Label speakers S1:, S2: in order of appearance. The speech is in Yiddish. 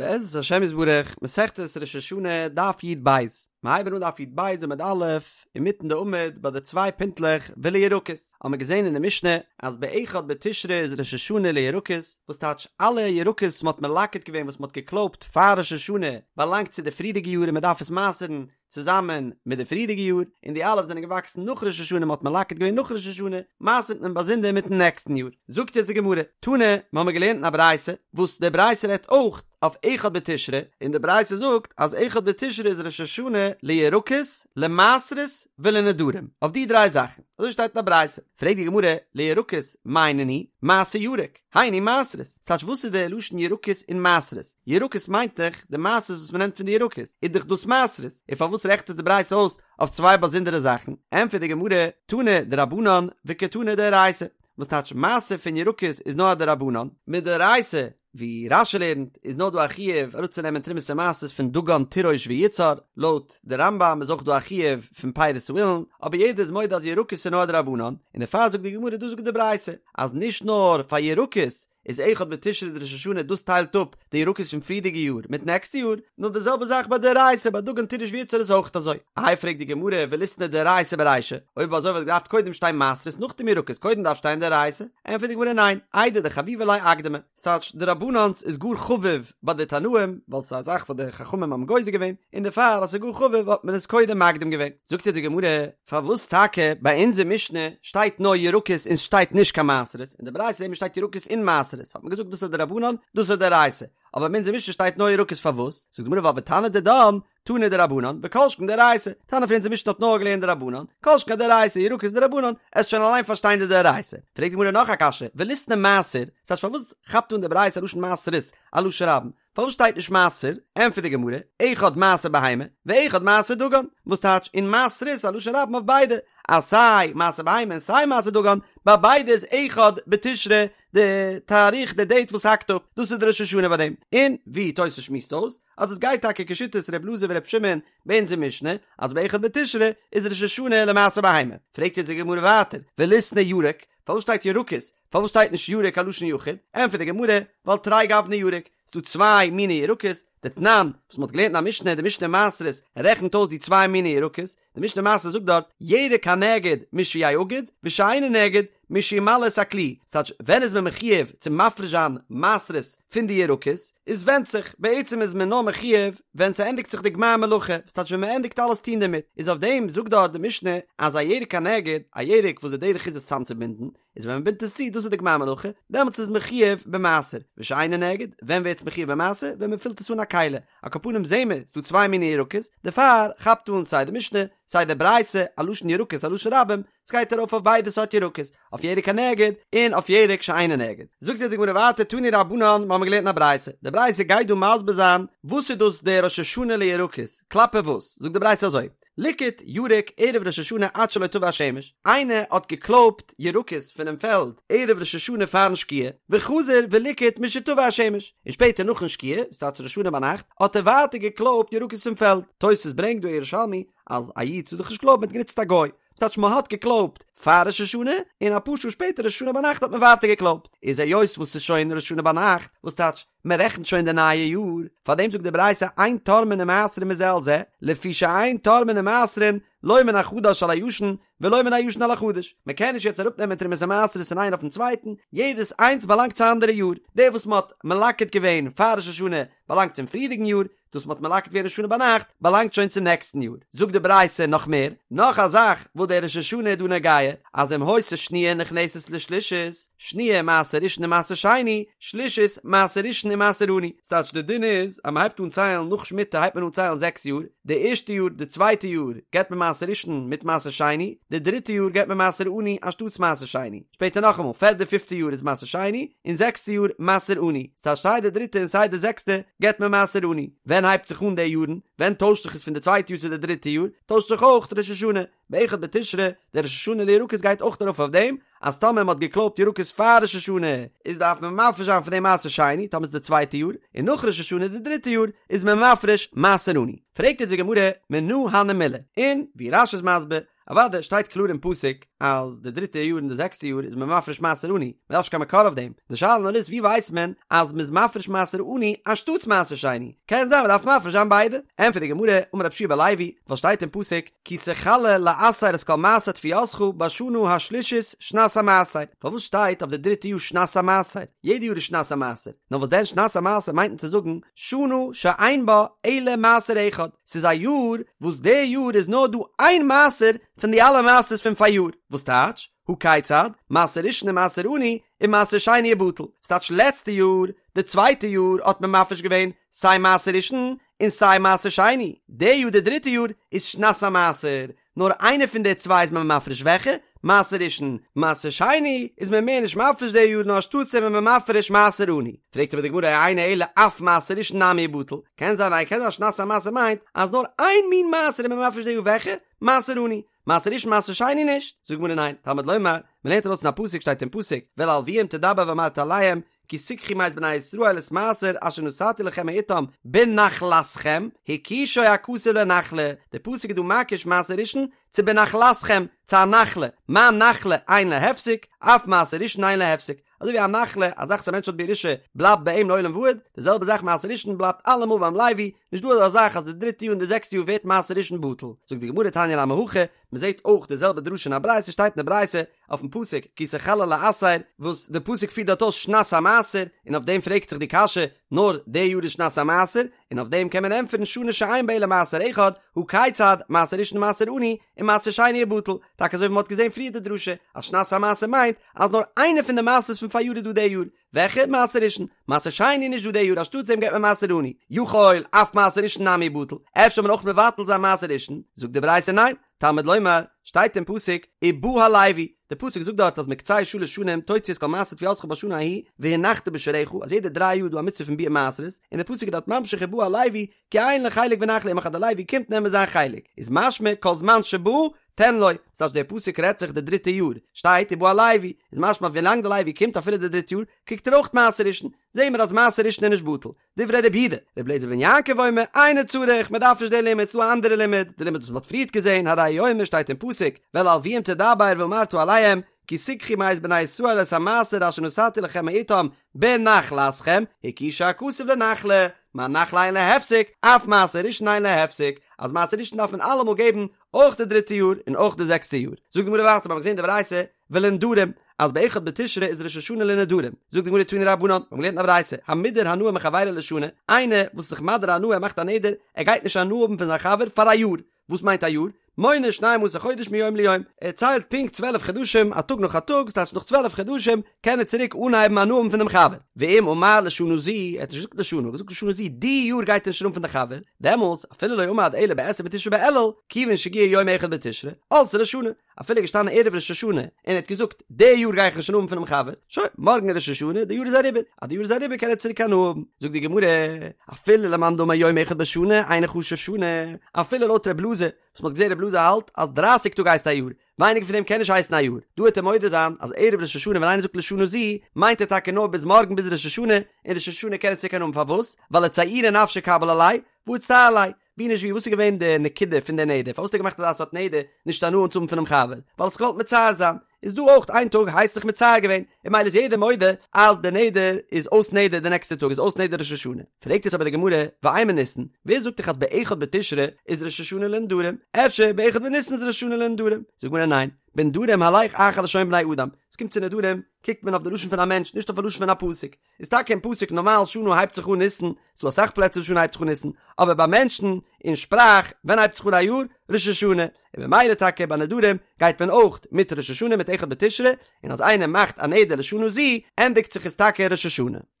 S1: בעזרת השם יתברך, מסכת ראש השנה, דף י"ב, מיר הייבן אן דף י"ב עמוד א', אינמיטן די עמוד ביי די צוויי פינטלעך ולירקות, האמיר געזען אין די משנה אז באחד בתשרי איז ראש השנה לירקות, וואס טייטש אלע ירקות וואס מ'האט מלקט געווען וואס מ'האט געקלויבט פאר ראש השנה באלאנגט צו די פריערדיגע יאר און מ'דארף עס מעשר'ן צוזאמען מיט די פריערדיגע יאר, און די אלע וואס זענען געוואקסן נאך ראש השנה מ'האט מלקט געווען נאך ראש השנה, מעשר'ט מען באזונדער מיטן נעקסטן יאר. זאגט יעצט די גמרא, תנא, מ'האמיר געלערנט אין א ברייתא, וואס די ברייתא רעדט אויך אויף אחד בתשרי, און די ברייתא זאגט אז אחד בתשרי איז ראש השנה לירקות, למעשרות ולנדרים, אויף די דריי זאכן, אזוי שטייט אין א ברייתא. פרעגט די גמרא, לירקות מאי נינהו, מעשר ירק, היינו מעשרות, ס'טייטש וואס איז די לשון ירקות און מעשרות? ירקות מיינט דאך די מעשרות וואס מ'נעמט פון די ירקות, איז דאך דאס מעשרות, און פארוואס רעכנט עס די ברייתא אויס אויף צוויי באזונדערע זאכן? ענטפערט די גמרא, תנא דרבנן וקתני דאורייתא, וואס טייטש מעשר פון ירקות איז נאר א דרבנן, מדאורייתא, ווי רש"י לערנט, איז נאר דא א חיוב אראפצונעמען תרומות און מעשרות פון דגן תירוש ויצהר, לויט די רמב"ם איז אויך דא א חיוב פון פירות האילן, אבער יעדער איז מודה אז ירקות איז נאר א דרבנן, און דערפאר זאגט די גמרא דאס זאגט די ברייתא, אז נישט נאר פאר ירקות איז אחד בתשרי די ראש השנה דאס טיילט אפ די ירקות פון פריערדיגע יאר מיט נעקסטע יאר, נאר די זעלבע זאך ביי דאורייתא ביי דגן תירוש ויצהר איז אויך אזוי. איי פרעגט די גמרא וליתני דאורייתא ברישא, אויב אזוי וואלט געדארפט קודם שטיין מעשרות נאכדעם ירקות קודם דארף שטיין דאורייתא, ענטפערט די גמרא ניין, איידי דחביבא ליה אקדמה, ס'טייטש דרבנן'ס איז גאר חביב ביי די תנאים ווייל ס'איז א זאך וואס די חכמים האבן גוזר געווען, און דערפאר אז ס'איז גאר חביב האט מען עס קודם מקדים געווען. זאגט אונז די גמרא, פארוואס טאקע ביי אונזער משנה שטייט נאר ירקות און סשטייט נישט קיין מעשרות, אין די ברייתא זעהט מען שטייט ירקות און מעשרות, האט מען געזאגט דאס איז דרבנן דאס איז דאורייתא, אבער ביי אונזער משנה שטייט נאר ירקות פארוואס? זאגט די גמרא ווייל ותנא דידן תנא דרבנן וכל שכן דאורייתא, תנא פון אונזער משנה האט נאר געלערנט דרבנן, כל שכן דאורייתא, ירקות דרבנן, עסט שוין אליין פארשטיין די דאורייתא. פרעגט די גמרא נאך א קשיא, וליתני מעשר, ס'טייטש פארוואס כאפט אן די ברייתא א לשון מעשרות א לשון רבים? פארוואס שטייט נישט מעשר? ענטפערט די גמרא, אחד מעשר בהמה, ואחד מעשר דגן, וואס טייטש און מעשרות א לשון רבים אויף ביידע, אז סיי מעשר בהמה און סיי מעשר דגן, ביי ביידע איז אחד בתשרי די תאריך די דעיט וואס האקט אפ, דאס איז די ראש השנה ביי דעם, און ווי תוס' שמועסט אויס, אז דאס גייט טאקע כשיטת ר' אלעזר ור' שמעון ביי אונזער משנה, אז באחד בתשרי איז ראש השנה למעשר בהמה. פרעגט יעצט די גמרא ווייטער, וליתני ירק, פארוואס שטייט ירקות? פארוואס שטייט נישט ירק א לשון יחיד? ענטפערט די גמרא, ווייל תרי גווני ירק, ס'דא צוויי מיני ירקות, דתנן, וואס מ'האט געלערנט אין א משנה, די משנה מעשרות רעכנט אויס די צוויי מיני ירקות, די משנה מעשרות זאגט דארט, ירק הנאגד משיאגד, ושאינו נאגד משימלא את הכלי, ס'טייטש ווען איז מען מחיוב צו מפריש זיין מעשרות פון די ירקות, איז ווענדט זיך, בעצם איז מען נאר מחיוב ווען ס'ענדיגט זיך די גמר מלאכה, ס'טייטש ווען מ'ענדיגט אלעס טון דערמיט, איז אויף דעם זאגט דארט די משנה אז א ירק הנאגד, א ירק וואס די דרך איז עס צאמצובינדן, איז ווען מען בינדט עס צו דאס איז די גמר מלאכה, דעמאלטס איז מחיוב במעשר, ושאינו נאגד, ווען ווערט עס מחיוב במעשר? ווען מען פילט עס אן א כלי, על כל פנים זעהן מיר ס'דא צוויי מיני ירקות, דערפאר כאפט אן סיי די משנה, סיי די ברייתא, א לשון ירקות א לשון רבים, ס'גייט ארויף אויף ביידע סארט ירקות, אויף ירק הנאגד, און אויף ירק שאינו נאגד. זאגט יעצט די גמרא ווייטער תנו רבנן, מיר האבן געלערנט אין א ברייתא, די ברייתא גייט דא מסביר זיין וואס איז דאס דער ראש השנה לירקות, כלפי וואס, זאגט די ברייתא אזוי, ליקט ירק ערב ראש השנה עד שלא תבא השמש, איינער האט געקלויבט ירקות פונעם פעלד ערב ראש השנה פארן שקיעה, וחזר וליקט משתבא השמש, און שפעטער נאכן שקיעה, ס'טייטש ראש השנה ביינאכט, האט ער ווייטער געקלויבט ירקות פון פעלד. תוס' ברענגט דא ירושלמי אז א איד טאר דאך נישט קלויבן, מ'האט גענוצט א גוי, ס'טייטש מ'האט געקלויבט פאר ראש השנה, און אפאר שעה שפעטער ראש השנה ביינאכט האט מען ווייטער געקלויבט, איז היות וואס ס'איז שוין ראש השנה ביינאכט, וואס טייטש מען רעכנט שוין די נייע יאר, פאר דעם זאגט די ברייתא אין תורמין ומעשרין מזה על זה, לפי שאין תורמין ומעשרין לא מן החדש על הישן ולא מן הישן על החדש, מען קען נישט יעצט אראפ נעמען תרומות ומעשרות פון איין אויפן צווייטן, יעדעס איינס באלאנגט צו א אנדערע יאר, דער וואס מען האט מלקט געווען פאר ראש השנה באלאנגט צום פריערדיגן יאר, דאס מ'האט מלקט געווען ראש השנה ביינאכט באלאנגט שוין צום נעקסטן יאר. זאגט די ברייתא נאך מער, נאך א זאך וואס דער ראש השנה איז דא נוגע, אז אם היתה שניה נכנסת לשלישית, שניה מעשר ראשון ומעשר שני, שלישית מעשר ראשון ומעשר עני. ס'טייטש די דין איז אז מ'הייבט אן ציילן נאך שמיטה הייבט מען אן ציילן זעקס יאר, די ערשטע יאר די צווייטע יאר געבט מען מעשר ראשון מיט מעשר שני, די דריטע יאר געבט מען מעשר עני אנשטאטס מעשר שני, שפעטער נאכאמאל פערדע פיפטע יאר איז מעשר שני, און זעקסטע יאר מעשר עני. ס'טייטש סיי די דריטע און סיי די זעקסטע געבט מען מעשר עני. ווען הייבט זיך אן די יארן? ווען טוישט זיך עס פון די צווייטע יאר צו די דריטע יאר? טוישט זיך אויך ראש השנה. באחד בתשרי, דער ראש השנה לירקות גייט אויך ארויף אויף דעם, אז טאמער מ'האט געקלויבט ירקות פאר ראש השנה, איז דארף מען מפריש זיין פון דעם מעשר שני, טאמער ס'איז די צווייטע יאר, און נאך ראש השנה די דריטע יאר, איז מען מפריש מעשר עני. פרעגט יעצט די גמרא, מנא הני מילי? און, ווי רש"י איז מסביר, אוודאי שטייט קלאר אין פסוק אז די דריטע יאר און די זעקסטע יאר איז מען מפריש מעשר עני, מען דארף נישט קיין מקור אויף דעם, די שאלה נאר איז ווי ווייסט מען אז מען איז מפריש מעשר עני אנשטאטס מעשר שני, קען זיין מען דארף מפריש זיין ביידע, ענטפערט די גמרא, אמר רב יהושע בן לוי, ווייל שטייט אין פסוק, כי תכלה לעשר את כל מעשר תבואתך בשנה השלישית שנת המעשר, פארוואס שטייט אויף די דריטע יאר שנת המעשר? יעדע יאר איז שנת המעשר, נאר וואס דען שנת המעשר מיינט מען צו זאגן שנה שאין בה אלא מעשר אחד, ס'איז א יאר וואס די יאר איז נאר דא איין מעשר פון די אלע מעשרות פון פאריאר, וואס טייטש, הא כיצד, מעשר ראשון ומעשר עני, ומעשר שני ובטל, ס'טייטש לעצטע יאר, די צווייטע יאר האט מען מפריש געווען סיי מעשר ראשון און סיי מעשר שני, די יאר די דריטע יאר איז שנת המעשר, נאר איינע פון די צוויי איז מען מפריש וועלכע? מעשר ראשון, מעשר שני איז מען מער נישט מפריש די יאר נאר אנשטאטס איז מען מפריש מעשר עני. פרעגט אבער די גמרא אינו אלא אף מעשר ראשון נמי ובטל, קען זיין ניין קען זיין שנת המעשר מיינט אז נאר איין מין מעשר איז מען מפריש די יאר וועלכע? מעשר עני, מעשר ראשון מעשר שני נישט, זאגט די גמרא ניין, תלמוד לומר, מען לערנט ארויס אין א פסוק שטייט אין פסוק, ואל הלוים תדבר ואמרת אליהם, כי תקחו מאת בני ישראל את מעשר אשר נתתי לכם מאתם בנחלתכם, הקישו הכתוב לנחלה, די פסוק איז דא מקיש מעשר ראשון צו בנחלתכם, צו א נחלה, מה נחלה אין לה הפסק, אף מעשר ראשון אין לה הפסק, אזוי ווי א נחלה, א זאך וואס א מענטש האט בירושה, בלייבט ביי אים לעולם ועד, די זעלבע זאך מעשר ראשון בלייבט אלעמאל ביים לוי, נישט דא אזא זאך אז די דריטע יאר און די זעקסטע יאר ווערט מעשר ראשון בטל. זאגט די גמרא תניא נמי הכי, מען זעט אויך די זעלבע דרשה אין א ברייתא, שטייט אין די ברייתא אויפן פסוק כי תכלה לעשר, וואס די פסוק פירט דארט אויס שנת המעשר, און אויף דעם פרעגט זיך די קשיא, נאר די יאר איז שנת המעשר, און אויף דעם קען מען ענטפערן שנה שאין בה אלא מעשר אחד, הא כיצד, מעשר ראשון מעשר עני, ומעשר שני ובטל, טאקע אזוי ווי מען האט געזען פריער די דרשה, אז שנת המעשר מיינט אז נאר איינע פון די מעשרות פון פאריאר איז דא די יאר, וועלכע? מעשר ראשון. מעשר שני נישט דא די יאר אנשטאטס דעם געבט מען מעשר עני. יכול אף מעשר ראשון נמי ובטל. אפשר זאל מען אויך מבטל זיין מעשר ראשון? זאגט די ברייתא ניין. תלמוד לומר, שטייט אין פסוק, ובא הלוי, די פסוק זאגט דארט אז מקצה שלש שנים תוציא את כל מעשר תבואתך בשנה ההיא והנחת בשעריך, אז יעדע דריי יאר איז דא א מצוה פון ביעור מעשרות, און די פסוק איז דארט ממשיך ובא הלוי, כי אין לו חלק ונחלה עמך אז די לוי קומט נעמען זיין חלק, איז משמע כל זמן שבא תן לו, ס'טייטש דער פסוק רעדט זיך די דריטע יאר, שטייט ובא הלוי, איז משמע אז ווילאנג די לוי קומט אפילו די דריטע יאר, קריגט ער אויך מעשר ראשון, זעהן מיר אז מעשר ראשון איז נישט בטל, דברי רבי יהודה, רבי אליעזר בן יעקב אומר, אינו צריך, מען דארף נישט די לימוד, ס'דא א אנדערע לימוד, די לימוד וואס מען האט פריערט געזעהן, הרי הוא אומר שטייט אין פסוק, ואל הלוים תדבר ואמרת אליהם, כי תקחו מאת בני ישראל את המעשר אשר נתתי לכם מאתם בנחלתכם, הקישו הכתוב לנחלה, מה נחלה אין לה הפסק, אף מעשר ראשון אין לה הפסק, אז מעשר ראשון דארף מען אלעמאל געבן, אויך די דריטע יאר און אויך די זעקסטע יאר. זאגט די גמרא ווייטער, מיר האבן געזען די ברייתא, ולנדרים, אז באחד בתשרי איז ראש השנה לנדרים, זאגט די גמרא תנו רבנן, מיר האבן געלערנט אין א ברייתא, המודר הנאה מחבירו לשנה, איינער וואס איז זיך מדיר הנאה ער מאכט א נדר, ער גייט נישט הנאה האבן פון זיין חבר פאר א יאר, וואס מיינט א יאר? מונה שנים עשר חודש מיום ליום, ער ציילט פונקט צוועלף חדשים א טאג נאך א טאג, ס'טייטש נאך צוועלף חדשים קען ער צוריק אנהייבן הנאה האבן פון דעם חבר, ואם אמר לשנה זו, ער האט נישט געזאגט לשנה, ער האט געזאגט לשנה זו, די יאר גייט ער נישט הנאה האבן פון די חבר, דעמאלטס אפילו לא עמד אלא בעשרים ותשעה באלול, כיוון שהגיע יום אחד בתשרי, עלתה לו שנה, אפילו געשטאנען ערב ראש השנה און ער האט געזאגט די יאר גיי איך נישט הנאה האבן פונעם חבר, שוין, מארגן איז ראש השנה, די יאר איז אריבער, אז די יאר איז אריבער קען ער צוריק הנאה האבן. זאגט די גמרא, אפילו למאן דאמר יום אחד בשנה אינו חשוב שנה, אפילו לויט ר' אלעזר, וואס מ'האט געזען ר' אלעזר האלט אז דרייסיג טאג הייסט א יאר, ווייניגער פון דעם קען נישט הייסן א יאר, דא וועט ער מודה זיין אז ערב ראש השנה ווען איינער זאגט לשנה זו, מיינט ער טאקע נאר ביז מארגן ביז ראש השנה, און ראש השנה קען ער צוריק הנאה האבן פארוואס? ווייל לצעורי נפשיה קביל עליה, והא אצטער ליה, ווי נישט ווי וואס איז געווען די נקודה פון די נדר? פארוואס האט ער געמאכט אזא סארט נדר נישט הנאה צו האבן פונעם חבר? ווייל ער האט זיך געוואלט מצער זיין. איז דא אויך איין טאג הייסט זיך מצער געווען, און ממילא איז יעדער מודה אז די נדר איז אויס נדר די נעקסטע טאג איז אויס נדר ראש השנה. פרעגט יעצט אבער די גמרא, ואימא ניסן, ווער זאגט דיך אז באחד בתשרי איז ראש השנה לנדרים? אפשר באחד בניסן איז ראש השנה לנדרים? זאגט די גמרא ניין, בנדרים הלך אחר לשון בני אדם, עס קומט צו נדרים קוקט מען אויף די לשון פון א מענטש נישט אויף א לשון פון א פסוק, איז טאקע אין פסוק נארמאל שנה הייבט זיך אן ניסן, ס'דא אסאך פלעצער שנה הייבט זיך אן ניסן, אבער ביי מענטשן אין שפראך ווען הייבט זיך אן א יאר? ראש השנה, און ממילא טאקע ביי נדרים גייט מען אויך מיט ראש השנה מיט אחד בתשרי, און אז איינער מאכט א נדר לשנה זו ענדיגט זיך עס טאקע ראש השנה.